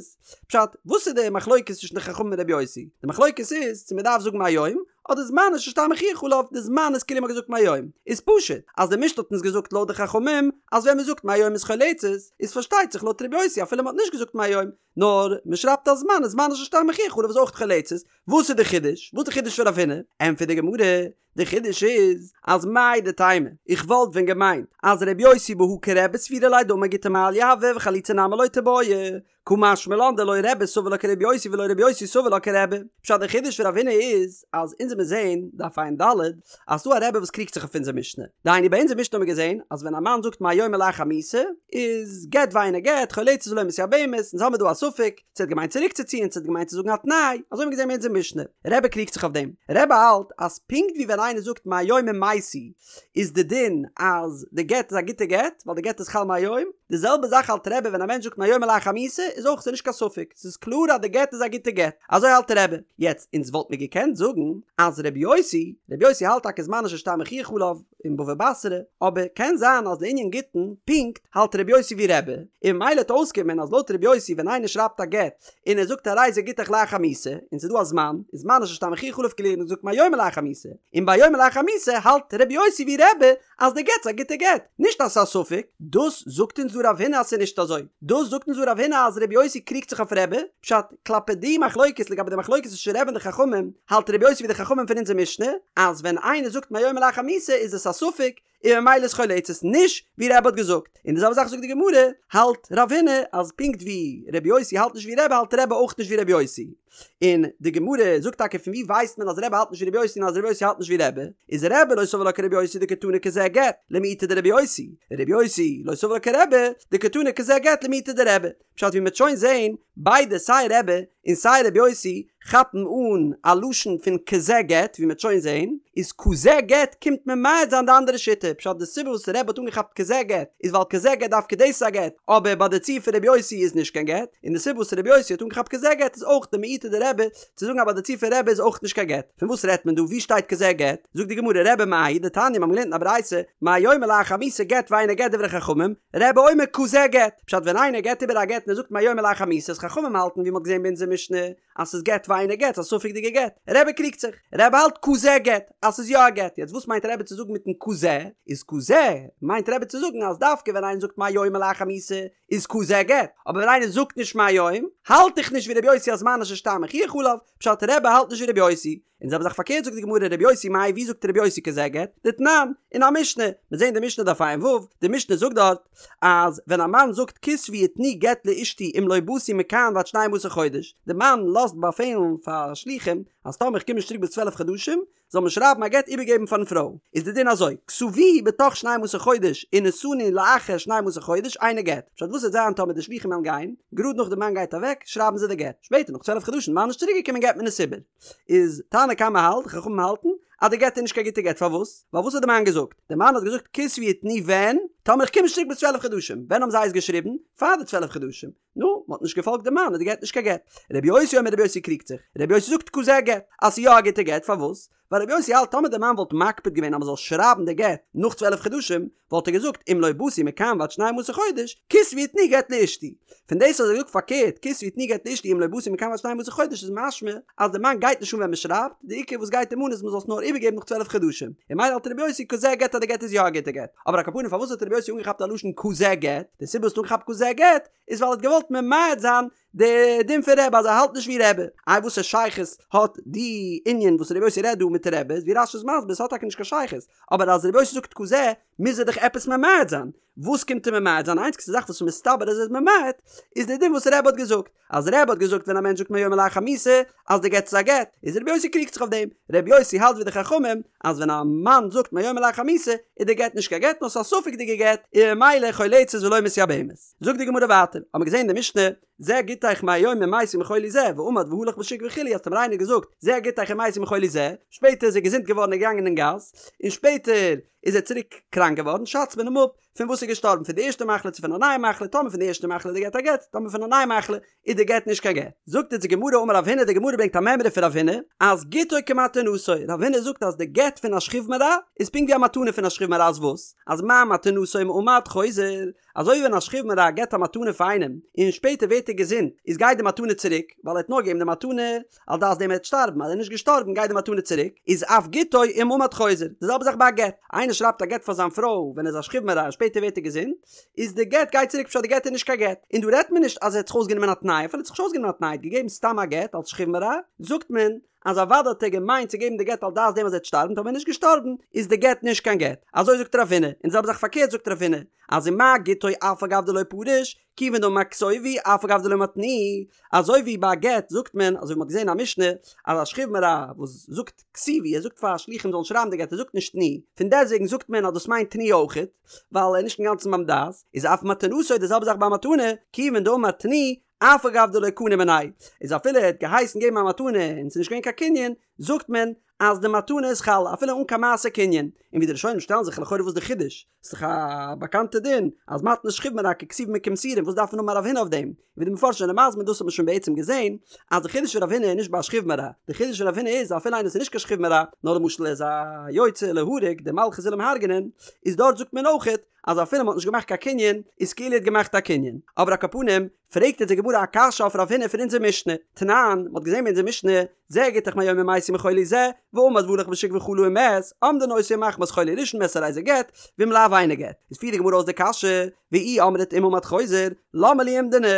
פשט, וואס איז די מחלוקת צווישן די חכמים און רבי יוסי? די מחלוקת איז צו מען דארף זאגן מהיום, אדער זמנו של שטר מוכיח עליו, די זמן איז כאילו מען האט געזאגט מהיום. איז פשוט, אז די משנה האט אונז געזאגט לויט די חכמים, אז ווען מען זאגט מהיום איז חולצת, איז פארשטייט זיך לויט רבי יוסי אפילו מען האט נישט געזאגט מהיום, נאר מען שרייבט א זמן איז זמנו של שטר מוכיח עליו איז אויך חולצת. וואס איז די חידוש? וואס איז די חידוש פון רב הונא? ענטפערט די גמרא, די חידוש איז אז מהו דתימא, איך וואלט ווען געמיינט אז ר' יוסי בהא כרבי סבירא ליה דאמר גיטא מעליא הוי וחליצה נמי לא תיבעי, קא משמע לן דלא רבי סבר לה כר' יוסי ולא ר' יוסי סבר לה כרבי. פשט די חידוש פון רב הונא איז אז אונז וועמיר זעהן, דף ע"ד, אז ס'דא א רבי וואס קריגט זיך אויף אונזער משנה. דהיינו ביי אונזער משנה האמיר געזעהן אז ווען א מאן זאגט מהיום ולאחר מיתה איז גט ואינו גט, חולצת ולא מתייבמת, אונז האמיר דא א. ספק, צו ער האט געמיינט צוריקצוציען צו ער האט געמיינט צו זאגן א תנאי, אזוי האבן מיר געזען אין אונזער משנה. רבי קריגט זיך אויף דעם. רבי האלט אז פונקט ווי ווען איינער זאגט מהיום אם מתי איז די דין אז די גט איז א גוטע גט ווייל די גט איז חל מהיום, די זעלבע זאך האלט רבי ווען א מענטש זאגט מהיום ולאחר מיתה איז אויך ס'איז נישט קיין ספק ס'איז קלאר אז די גט איז א גוטע גט, אזוי האלט רבי. יעצט אונז וואלט מיר געקענט זאגן אז רבי יוסי, רבי יוסי האלט טאקע זמנו של שטר מוכיח עליו אין בבא בתרא, אבער קען זיין אז לענין גיטין פונקט האלט רבי יוסי ווי רבי, און ממילא וועט אויסקומען אז לויט רבי יוסי ווען איינער שרייבט א גט און ער זאגט הרי זה גיטך לאחר מיתה און ס'איז דא א זמן, איז זמנו של שטר מוכיח עליו כאילו ער האט געזאגט מהיום ולאחר מיתה, און ביי מהיום ולאחר מיתה האלט רבי יוסי ווי רבי אז די גט איז א גוטע גט, נישט אז ס'איז א ספק, דאס זאגט אונז דא רב הונא אז ס'איז נישט אזוי, דאס זאגט אונז דא רב הונא אז רבי יוסי קריגט זיך אויף רבי, פשט, כלפי די מחלוקת לגבי די מחלוקת צווישן רבי און די חכמים, האלט רבי יוסי ווי די חכמים פון אונזער משנה, אז ווען איינער זאגט מהיום ולאחר מיתה איז עס א ספק, און ממילא איז חולצת נישט ווי רבי האט געזאגט, און די זעלבע זאך זאגט די גמרא, האלט רב הונא אז פונקט ווי רבי יוסי האלט נישט ווי רבי האלט רבי אויך נישט ווי רבי יוסי, און די גמרא זאגט טאקע פון ווי ווייסט מען אז רבי האלט נישט ווי רבי יוסי און אז רבי יוסי האלט נישט ווי רבי, איז רבי לא סבר לה כרבי יוסי דקתני כזה גט, למעוטי דרבי יוסי, רבי יוסי לא סבר לה כרבי דקתני כזה גט למעוטי דרבי, פשט ווי מ'וועט שוין זעהן, ביידע סיי רבי און סיי רבי יוסי כאפן אן א לשון פון כזה גט ווי מ'וועט שוין זעהן, איז כזה גט קומט ממעט זיין די אנדערע שיטה, פשט די סיבה וואס רבי האט אנגעכאפט כזה גט איז ווייל כזה גט דווקא דאס איז א גט, אבער ביי די ציור פון רבי יוסי איז נישט קיין גט, און די סיבה וואס רבי יוסי האט אנגעכאפט כזה גט איז אויך די למעוטי דרבי צו זאגן אז ביי די ציור פון רבי איז אויך נישט קיין גט. פון וואס רעדט מען דא? וואו שטייט כזה גט? זאגט די גמרא רבי מאי דתניא מיר האבן געלערנט אין א ברייתא מהיום ולאחר מיתה גט ואינו גט דברי חכמים, רבי אומר כזה גט, פשט ווען איינער געבט איבער א גט און ער זאגט מהיום ולאחר מיתה איז חכמים האלטן ווי מ'האט געזען ביי אונזער משנה אז ס'איז גט ואינו גט ס'איז א ספק'דיגע גט, רבי קריגט זיך, רבי האלט כזה גט אז ס'איז יא א גט, יעצט וואס מיינט רבי צו זאגן מיטן כזה? איז כזה מיינט רבי צו זאגן אז דווקא ווען איינער זאגט מהיום ולאחר מיתה איז כזה גט, אבער ווען איינער זאגט נישט מהיום האלט איך נישט ווי רבי יוסי אז זמנו של שטר מוכיח עליו, פשט רבי האלט נישט ווי רבי יוסי, און זעלבע זאך פארקערט זאגט די גמרא רבי יוסי מאי ווי זאגט רבי יוסי כזה גט? דתנן, אין א משנה, מיר זעהן די משנה דף ע"ו, די משנה זאגט דארט אז ווען א מאן זאגט כתבו ותנו גט לאשתי אם לא באתי מכאן ועד שנים עשר חודש, די מאן לאזט באפעלן פאר שלוחים אז טאמער איך קום נישט צוריק ביז צוועלף חדשים זאל מען שרייבן א גט איבערגעבן פארן פרוי, איז די דין אזוי, כתבוהו בתוך שנים עשר חודש ונשאנו לאחר שנים עשר חודש אינו גט, פשט וואס וועט זיין טאמער די שלוחים וועלן גיין, גראד נאך די מאן גייט אוועק שרייבן זיי די גט, שפעטער נאך צוועלף חדשים די מאן איז נישט צוריק געקומען געבט מען עס איבער. איז תנא קמא האלט, חכמים האלטן, אז די גט איז נישט קיין גוטע גט, פארוואס? ווייל וואס האט די מאן געזאגט? די מאן האט געזאגט כתבו ותנו ווען? טאמער איך קום נישט צוריק ביז צוועלף חדשים, ווען האבן זיי עס געשריבן? פאר די צוועלף חדשים, נו, מען האט נישט געפאלגט די מאן איז די גט נישט קיין גט. רבי יוסי אומר רבי יוסי קריגט זיך, רבי יוסי זאגט כזה גט, אז ס'איז יא א גוטע גט, פארוואס? ווייל רבי יוסי האלט טאמער די מאן וואלט מקפיד געווען אז מען זאל שרייבן די גט נאך צוועלף חדשים, וואלט ער געזאגט אם לא באתי מכאן ועד שנים עשר חודש, כתבו ותנו גט לאשתי. פון דאס אז ער זאגט פארקערט כתבו ותנו גט לאשתי אם לא באתי מכאן ועד שנים עשר חודש איז משמע אז די מאן גייט נישט אן ווען מען שרייבט, די עיקר וואס גייט אים אן איז מען זאל עס נאר איבערגעבן נאך צוועלף חדשים. און ממילא האלט רבי יוסי כזה גט אז די גט איז יא א גוטע גט. אבער על כל פנים פארוואס האט רבי יוסי אנגעכאפט א לשון כזה גט? די סיבה וואס ער האט אנגעכאפט כזה גט איז ווייל ער האט געוואלט ממעט זיין די דין פון רבי אז ער האלט נישט ווי רבי. איי וואסע שייכות האט די ענין וואס רבי יוסי רעדט דא מיט רבי? ווי רש"י איז מסביר ס'האט טאקע נישט קיין שייכות, אבער אז רבי יוסי זאגט כזה מוז ער דאך עפעס ממעט זיין, וואס קומט ער ממעט זיין? איינציגסטע זאך וואס איז מסתבר אז ער איז ממעט איז די דין וואס רבי האט געזאגט, אז רבי האט געזאגט ווען א מענטש זאגט מהיום ולאחר מיתה אז די גט איז א גט, איז רבי יוסי קריגט זיך אויף דעם, רבי יוסי האלט ווי די חכמים אז ווען א מאן זאגט מהיום ולאחר מיתה איז די גט נישט קיין גט נאר ס'איז א ספק'דיגע גט און ממילא חולצת ולא מתייבמת. זאגט די גמרא ווייטער, האמיר געזען אין די משנה, זה גיטך מהיום אם מתי מחולי זה, ועמד והלך בשוק וכו' אז טאמער איינער האט געזאגט זה גיטך אם מתי מחולי זה, שפעטער איז ער געזונט געווארן און געגאנגען אין גאס, און שפעטער איז ער צוריק קראנק געווארן, שאצט מען אים אפ פון וואס איז געשטארבן, פון די ערשטע מחלה צו פון א נייע מחלה, טאמער פון די ערשטע מחלה איז די גט א גט, טאמער פון א נייע מחלה איז די גט נישט קיין גט. זאגט אונז די גמרא אמר רב הונא, די גמרא ברענגט א מימרא פון רב הונא, אז גיטו כמתנתו, רב הונא זאגט אז די גט פון א שכיב מרע איז פונקט ווי א מתנה פון א שכיב מרע אז וואס? אז מה מתנתו אם עמד חוזר, אזוי ווי ווען א שכיב מרע געט א מתנה פאר איינעם און שפעטער ווערט ער געזונט איז גייט די מתנה צוריק ווייל ער האט נאר געגעבן די מתנה על דעת דעם ער וועט שטארבן אז ער איז נישט געשטארבן גייט די מתנה צוריק איז אף גיטו אם עמד חוזר די זעלבע זאך ביי א גט איינער שרייבט א גט פאר זיין פרוי ווען ער איז א שכיב מרע און שפעטער ווערט ער געזונט איז די גט גייט צוריק פשט די גט איז נישט קיין גט און דא רעדט מען נישט אז ער האט זיך אויסגענומען א תנאי אפילו ער האט זיך נישט אויסגענומען א תנאי ער האט געגעבן סתם א גט אלס שכיב מרע זאגט מען אז אוודאי האט ער געמיינט צו געבן די גט על דעת דעם אז ער וועט שטארבן, טאמער ער איז נישט געשטארבן איז די גט נישט קיין גט, אזוי זאגט רב הונא, און די זעלבע זאך פארקערט זאגט רב הונא, אז ומה גיטו אף על גב דלא פריש, כיוון דאמר כתובו אף על גב דלא אמר תנו, אזוי ווי ביי א גט זאגט מען, אזוי ווי מען האט געזען אין א משנה, אז א שכיב מרע וואס זאגט כתיבו, ער זאגט פאר שלוחים זאלן שרייבן די גט, ער זאגט נישט תנו, פון דעסטוועגן זאגט מען אז דאס מיינט תנו אויכעט, ווייל ער איז נישט אינגאנצן ביים דעת, איז אף מתנתו די זעלבע זאך ביי א מתנה, כיוון דאמר תנו. אף על גב דלא קני מיניה, איז אפילו ער האט געהייסן געבן א מתנה און ס'איז נישט געווען קיין קנין, זאגט מען אז די מתנה איז חל אפילו אן קיין מעשה קנין, און ווי די ראשונים שטעלן זיך לכאורה וואס די חידוש? ס'איז דאך א באקאנטע דין אז מתנת שכיב מרע ככתובים וכמסורים וואס דארף מען האבן א רב הונא אויף דעם? און ווי די מפרשים זענען מסביר דאס האט מען שוין בעצם געזען אז די חידוש פון רב הונא איז נישט ביי א שכיב מרע, די חידוש פון רב הונא איז אפילו איינער וואס איז נישט קיין שכיב מרע נאר למשל ער איז א יוצא להורג די מלכות וויל אים הרג'נען איז דארט זאגט מען אויכעט אז אפילו מ'האט נישט געמאכט קיין קנין איז כאילו ער האט געמאכט א קנין אבער על כל פנים פרעגט אונז די גמרא א קשיא אויף רב הונא פון אונזער משנה, תנן, מ'האט געזען ביי אונזער משנה, זה גיטך מהיום אם מתי מחולי זה, ועמד והלך בשוק וחלה ומת, אומדין אותו אם מחמת חולי ראשון מת הרי זה גט, ואם לאו אינו גט. איז פירט די גמרא אויס די קשיא, ואי אמרת אם עמד חוזר, למה לי אומדנא,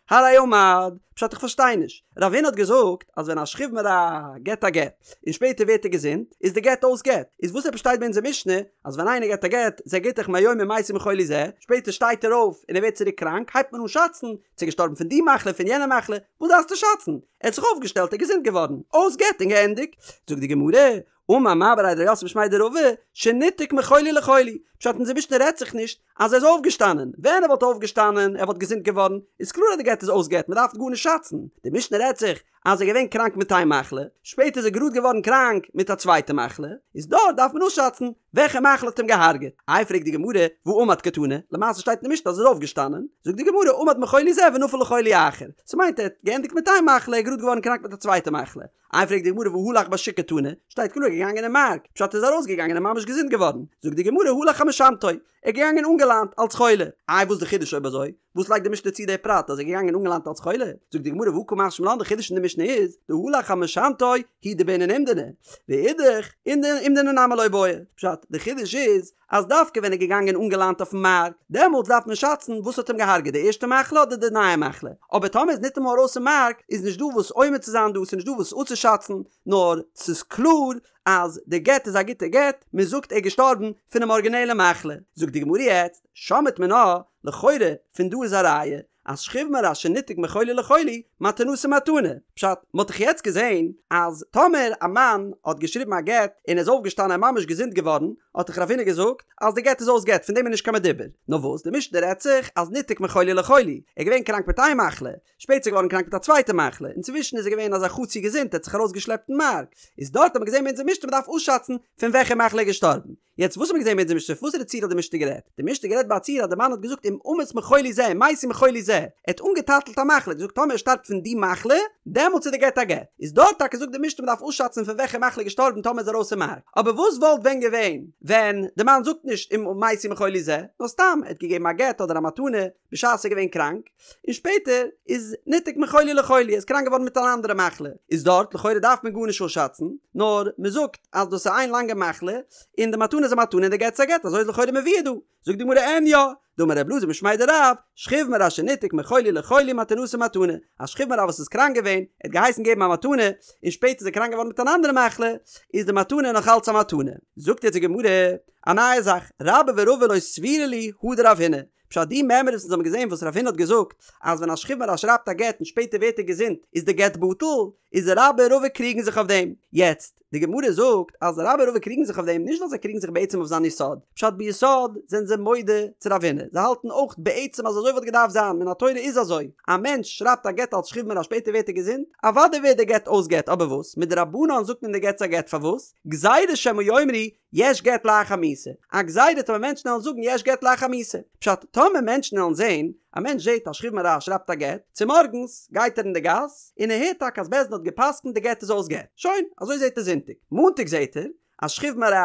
הרי עמד. פשט איך פארשטיי נישט. רב הונא האט געזאגט אז ווען א שכיב מרע געט א גט, און שפעטער ווערט ער געזונט, איז די גט אויס גט. איז וואס עפעס שטייט ביי אונזער משנה, אז ווען איינער געט א גט, זה גיטך מהיום אם מתי מחולי זה, שפעטער שטייט ער אויף און ער ווערט צוריק קראנק, הייבט מען אן שאצן, צו געשטארבן פון די מחלה פון יענע מחלה, וואס דארפסטו שאצן? ער האט זיך אויפגעשטעלט ער איז געזונט געווארן, אויס גט און געענדיגט. זאגט די גמרא, אמר מר בריה דרב יוסף משמיה דרבא, שניתק מחולי לחולי, פשט אונזער משנה רעדט זיך נישט אז ער איז אויפגעשטאנען, ווען ער וואלט אויפגעשטאנען, ער וואלט געזונט געווארן, איז קלאר אז די גט איז אויס גט, מען דארף גארנישט שאצן, די משנה רעדט זיך אז ער איז געווען קראנק מיט איין מחלה, שפעטער איז ער גראד געווארן קראנק מיט א צווייטע מחלה, איז דארט דארף מען אויסשאצן וועלכע מחלה האט אים געהארגעט. איי פרעגט די גמרא, והא עמד קתני, למעשה שטייט אין די משנה אז ער איז אויפגעשטאנען, זאגט די גמרא, עמד מחולי זה ונפל לחולי אחר, ס'מיינט ער האט געענדיגט מיט איין מחלה, ער איז גראד געווארן קראנק מיט א צווייטע מחלה. איי פרעגט די גמרא והא הלך בשוק קתני, שטייט קלאר ער איז געגאנגען אין מארק, פשט ער איז ארויסגעגאנגען און ממש געזונט געווארן, זאגט די גמרא הלך על משענתו, ער איז געגאנגען אנגעליינט אלץ חולה, איי וואס די חידוש אויב אזוי? וואס לייגט די משנה צו די פרט אז ער איז געגאנגען אנגעליינט אלץ חולה? זאגט די גמרא והא קא משמע לן די חידוש אין די משנה איז דהלך על משענתו הוא דבעינן אומדנא ואידך אומדנא נמי לא בעי פשט די חידוש איז אז דווקא ווען ער איז געגאנגען אנגעליינט אויפן מארק דעמאלטס דארף מען שאצן וואס האט אים געהארגעט די ערשטע מחלה אדער די נייע מחלה אבער טאמער איז ניטאמאל ארויס אין מארק איז נישט דא וואס אומד צו זיין דא ס'איז נישט דא וואס אפצושאצן נאר ס'איז קלאר אז די גט איז א גוטע גט מען זאגט ער איז געשטארבן פונעם ארגינעלע מחלה זאגט די גמרא יעצט שמעת מינה לכאורה פון דא איז א ראיה אז שכיב מרע שניתק מחולי לחולי מתנתו מתנה. פשט, מ'האט דאך יעצט געזען אז טאמער א מאן האט געשריבן א גט און איז אויפגעשטאנען און ממש געזונט געווארן, האט דאך רב הונא געזאגט אז די גט איז אויס גט פון דעם איז נישט קיין מדובר. נאר וואס, די משנה רעדט זיך אז ניתק מחולי לחולי, ער איז געווען קראנק מיט איין מחלה, שפעטער איז ער געווארן קראנק מיט א צווייטע מחלה, אינצווישן איז ער געווען אזא חצי געזונט ער האט זיך ארויסגעשלעפט אין מארק, איז דארט האט מען געזען ביי אונזער משנה מ'דארף אויסשאצן פון וועלכע מחלה ער איז געשטארבן. יעצט וואס האט מען געזען ביי אונזער משנה? וואס איז די ציור האט די משנה גערעדט? די משנה גערעדט ביי א ציור אז די מאן האט געזאגט אם אמות מחולי זה אם מתי מחולי זה, ער האט אנגעטאטלט א מחלה, געזאגט טאמער ער שטארבט פון די מחלה, דעמאלטס איז די גט א גט. איז דארט טאקע זאגט די משנה מ'דארף אויסשאצן פון וועלכע מחלה געשטארבן טאמער איז ארויס אין מארק. אבער וואס וואלט ווען געווען ווען די מאן זאגט נישט אם מתי מחולי זה, נאר סתם ער האט געגעבן א גט אדער א מתנה בשעת ער איז געווען קראנק, און שפעטער איז ניתק מחולי לחולי, ער איז קראנק געווארן מיט אן אנדערע מחלה, איז דארט לכאורה דארף מען גארנישט אויסשאצן, נאר מען זאגט אז דאס איז איין לאנגע מחלה, און די מתנה איז א מתנה און די גט איז א גט, אזוי איז לכאורה מבואר דא. זאגט די גמרא אין יא, דאמר ר' אלעזר משמיה דרב, שכיב מרע שניתק מחולי לחולי מתנתו מתנה, א שכיב מרע וואס איז קראנק געווען, ער האט געהייסן געבן א מתנה, און שפעטער איז ער קראנק געווארן מיט אן אנדערע מחלה, איז די מתנה נאך אלץ א מתנה. זאגט יעצט די גמרא א נייע זאך, רבה ורבא לא סבירא להו הא דרב הונא, פשט די מימרא וואס אונז האבן געזען וואס רב הונא האט געזאגט אז ווען א שכיב מרע שרייבט א גט און שפעטער ווערט ער געזונט איז די גט בטל, איז רבה און רבא קריגן זיך אויף דעם. יעצט, די גמרא זאגט אז רבה און רבא קריגן זיך אויף דעם נישט ווייל זיי קריגן זיך בעצם אויף זיין יסוד, פשט ביסוד זענען זיי מודה צו רב הונא, זיי האלטן אויך בעצם אז אזוי וואלט געדארפט זיין, מן התורה איז אזוי, א מענטש שרייבט א גט אלס שכיב מרע שפעטער ווערט ער געזונט, אוודאי ווערט די גט אויס גט, אבער וואס? מדרבנן זאגט מען די גט איז א גט פארוואס? גזירה שמא יאמרו יש גט לאחר מיתה, א גזירה טאמער מענטשן וועלן זאגן יש גט לאחר מיתה. פשט, טאמער מענטשן וועלן זען, א מענטש זעט א שכיב מרע שרייבט א גט, צומארגנס גייט ער אין די גאס, און ער הערט טאקע אז בית דין האט גע'פסק'נט די גט איז אויס גט. שוין, אזוי זעט ער זונטאג. מאנטאג זעט ער אז שכיב מרע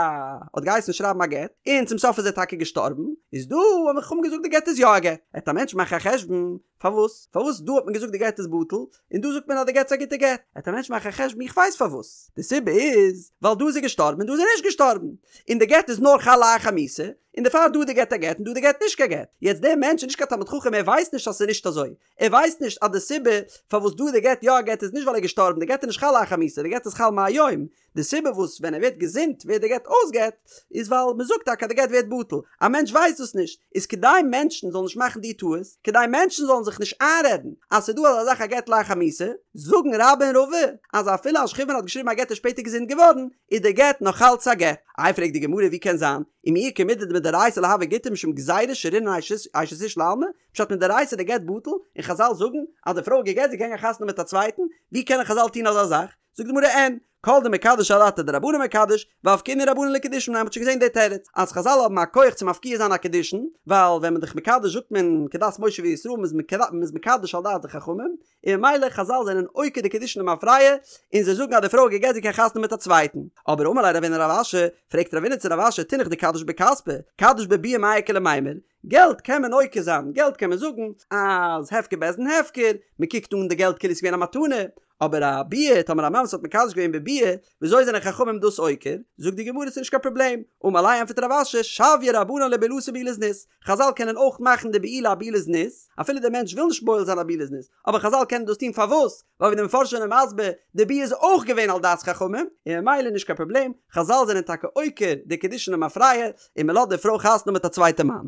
האט געהייסן שרייבן א גט, און צום סוף איז ער טאקע געשטארבן, איז דא האבן חכמים געזאגט די גט איז יא א גט. וועט א מענטש מאכן א חשבון, פארוואס? פארוואס דא האט מען געזאגט די גט איז בטל, און דא זאגט מען אז די גט איז א גוטע גט? וועט א מענטש מאכן א חשבון איך ווייס פארוואס, די סיבה איז ווייל דא איז ער געשטארבן און דא איז ער נישט געשטארבן, און די גט איז נאר חל לאחר מיתה, און דערפאר דא איז די גט א גט און דא איז די גט נישט קיין גט. יעצט דער מענטש איז נישט קיין תלמיד חכם ער ווייסט נישט אז ס'איז נישט אזוי, ער ווייסט נישט אז די סיבה פארוואס דא איז די גט יא א גט איז נישט ווייל ער איז געשטארבן, די גט איז נישט חל לאחר מיתה, די גט איז חל מהיום, די סיבה וואס ווען ער ווערט געזונט ווערט די גט אויס גט, איז ווייל מען זאגט טאקע אז די גט ווערט בטל, א מענטש ווייסט דאס נישט, איז כדי מענטשן זאלן נישט מאכן די טעות, כדי מענטשן זאלן זיך נישט איינרעדן אז ס'איז דא אזא זאך א גט לאחר מיתה, זאגן רבה און רבא אז אפילו א שכיב מרע האט געשריבן א גט און שפעטער געזונט געווארן, איז די גט נאך אלץ א גט. איי פרעגט די גמרא ווי קען זיין, ומי איכא מידי דמדאורייתא לא הוי גיטא משום גזירה שרינן אשת איש לעלמא, פשט מדאורייתא איז די גט בטל, און חזל זאגן אז די פרוי איז גע'גט זי קען גיין חתונה מיט א צווייטן, ווי קענען חזל טון אזא זאך? זאגט די גמרא אין, כל דמקדש אדעתא דרבנן מקדש, ואפקעינהו רבנן לקידושין מיניה, מ'האט שוין געזען די תירוץ, אז חזל האבן א כח צו מפקיע זיין א קידושין, ווייל ווען מ'איז דאך מקדש זאגט מען כדת משה וישראל מ'איז מקדש על דעת די חכמים, און ממילא חזל זענען עוקר די קידושין למפרע, און זיי זאגן אז די פרוי איז גע'גט זי קען חתונה מיט א צווייטן. אבער אמר ליה רבינא לרב אשי, פרעגט רבינא צו רב אשי תינח דקדיש בכספא, קדיש בביאה מאי איכא למימר, געלט קען מען עוקר זיין, געלט קען מען זאגן אז הפקר בית דין הפקר, מען קוקט אן די געלט כאילו עס איז געווען א מתנה, אבער א ביאה, טאמער א מאן וואס האט מקדש געווען בביאה, וויאזוי זענען חכמים דאס עוקר? זאגט די גמרא ס'איז נישט קיין פראבלעם, אמר ליה ענטפערט רב אשי, שויי רבנן לבעילתו בעילת זנות, חזל קענען אויך מאכן די בעילה א בעילת זנות, אפילו דער מענטש וויל נישט בועל זיין א בעילת זנות, אבער חזל קענען דאס טון פארוואס? ווייל ווי די מפרשים זענען מסביר, די ביאה איז אויך געווען על דעת חכמים, און ממילא נישט קיין פראבלעם, חזל זענען טאקע עוקר די קידושין למפרע, און מען לאזט די פרוי חתונה מיט א צווייטע מאן.